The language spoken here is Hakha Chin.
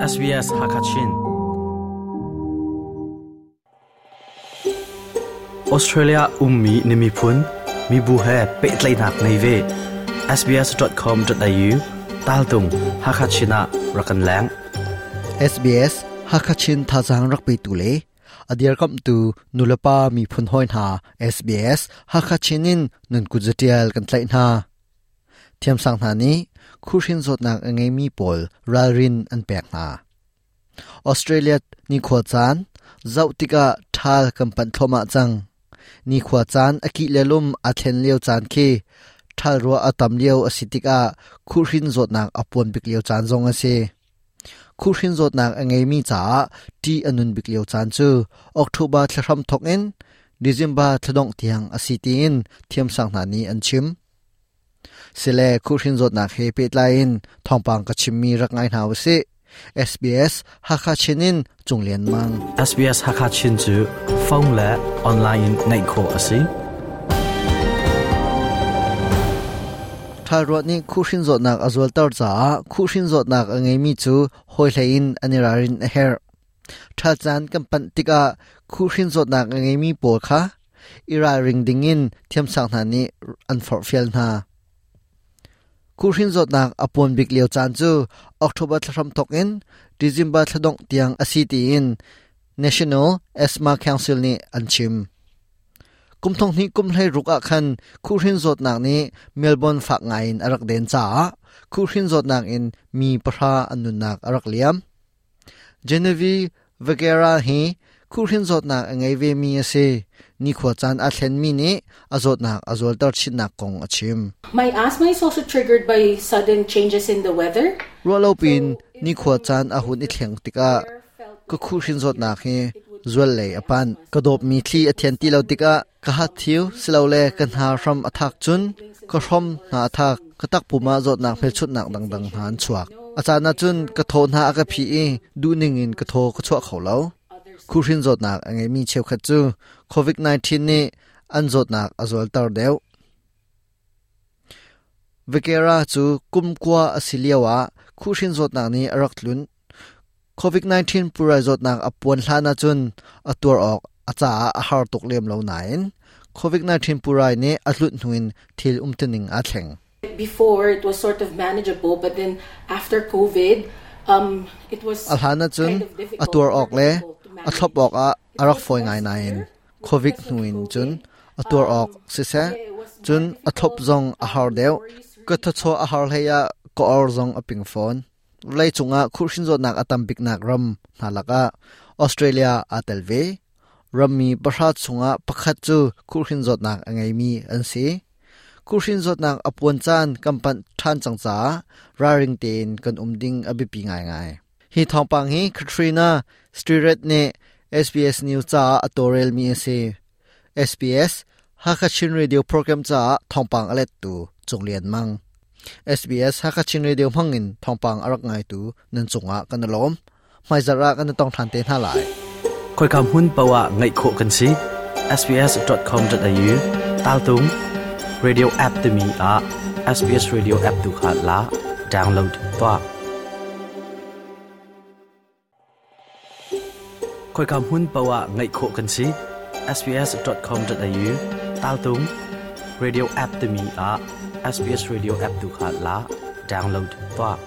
SBS Hakachin Australia ummi na miphun mibu he pehtlaihnak ngei ve. sbs.com.au taltung Hakachin ah rak kan leng. SBS Hakachin thazaang rak petu le a dirkamhtu nulepa miphun hawi hna SBS Hakachin in nun kut zatial kan tlaih hna. Thiamsang hna nih khuhhrin zawtnak a ngeimi pawl ralrin an pek hna. Australia nikhua caan zoh tikah ṭhal kan panh thluahmah cang. Nikhua caan a kih le lum aa thlen lio caan khi ṭhal ruah a tam lio a si tikah khuhhrin zawtnak a puan bik lio caan zong a si. Khuhhrin zawtnak a ngeimi caah ṭih a nun bik lio caan cu October thla hram thawk in December thla dongh tiang a si tiin thiamsang hna nih an chim. Sile khuhhrin zawtnak he pehtlai in thawngpang ka chimmi rak ngai hna usih. SBS Hakha Chin in Cung Lian Mang. SBS Hakha Chin cu phone le online in ngaih khawh a si. Ṭhalruah nih khuhhrin zawtnak a zualter caah khuhhrin zawtnak a ngeimi cu hawi hlei in an i ralrin a herh. Ṭhal caan kan panh tikah khuhhrin zawtnak a ngeimi pawl kha i ralring dingin thiamsang hna nih an forhfial hna. Khuhhrin zawtnak a puan bik lio caan cu October thla hramthawk in December thla dongh tiang a si tiin National Asthma Council nih an chim. Kum thong hnih kum hlei ruk ah khan khuhhrin zawtnak nih Melbourne fak ngai in a rak den caah khuhhrin zawtnak in mi pahra an nunnak a rak liam. Genevieve Vegera hi khuhhrin zawtnak a ngei vemi a si. Nikhua caan aa thlenmi nih a zawtnak a zualter chinnak kong a chim. My asthma is also triggered by sudden changes in the weather. Ruahlo piin nikhua caan a hun i thleng tikah ka khuhhrin zawtnak hi zual lei a panh. Ka dawpmi thli a thian ti lo tikah ka hathiu silole ka hna hram a thak cun ka hrom hna a thak. Ka takpum ah zawtnak hmelchunhnak dangdang hna an chuak. A caan ah cun ka thaw hna a ka phih i duhning in ka thaw ka chuah kho lo. Khuhhrin zawtnak a ngeimi cheukhat cu COVID-19 nih an zawtnak a zualter deuh. Vekera cu kum kua a si lioah khuhhrin zawtnak nih a rak tlunh. COVID-19 pulrai zawtnak a puan hlan ahcun a tuar awk a caah a har tuk lem lo nain COVID-19 pulrai nih a tlunh hnu in thil umtuning aa thleng. Before it was sort of manageable, but then after COVID, it was A hlan ahcun a tuar awk le a thlop awk ah a rak fawi ngai nain COVID hnu in cun a tuar awk siseh, cun a thlop zong a har deuh. Ka thawchuah a har hlei ah ka or zong a ping fawn. Vawleicung ah khuhhrin zawtnak a tam biknak ram hna lakah Australia aa tel ve. Rammi pahra chungah pakhat cu khuhhrin zawtnak a ngeimi an si. Khuhhrin zawtnak a puan caan kan panh ṭhan cang caah ralring tein kan um ding a biapi ngaingai. Hi thawngpang hi Katrina Stirrett nih SBS News caah a tawlrelmi a si. SBS Hakha Chin Radio program caah thawngpang a lettu Cung Lian Mang. SBS Hakha Chin Radio hmangin thawngpang a rak ngaitu nan cungah kan i lawm. Hmaizarh ah kan i tong ṭhan te hna lai. Khoika hmun paoh ah ngaih khawh kan si. sbs.com.au taltung radio app timi ah SBS Radio app tu kha la download tuah. Khoika hmun paoh ah ngaih khawh kan si. sbs.com.au taltung radio app timi ah SBS Radio app tu kha la download tuah.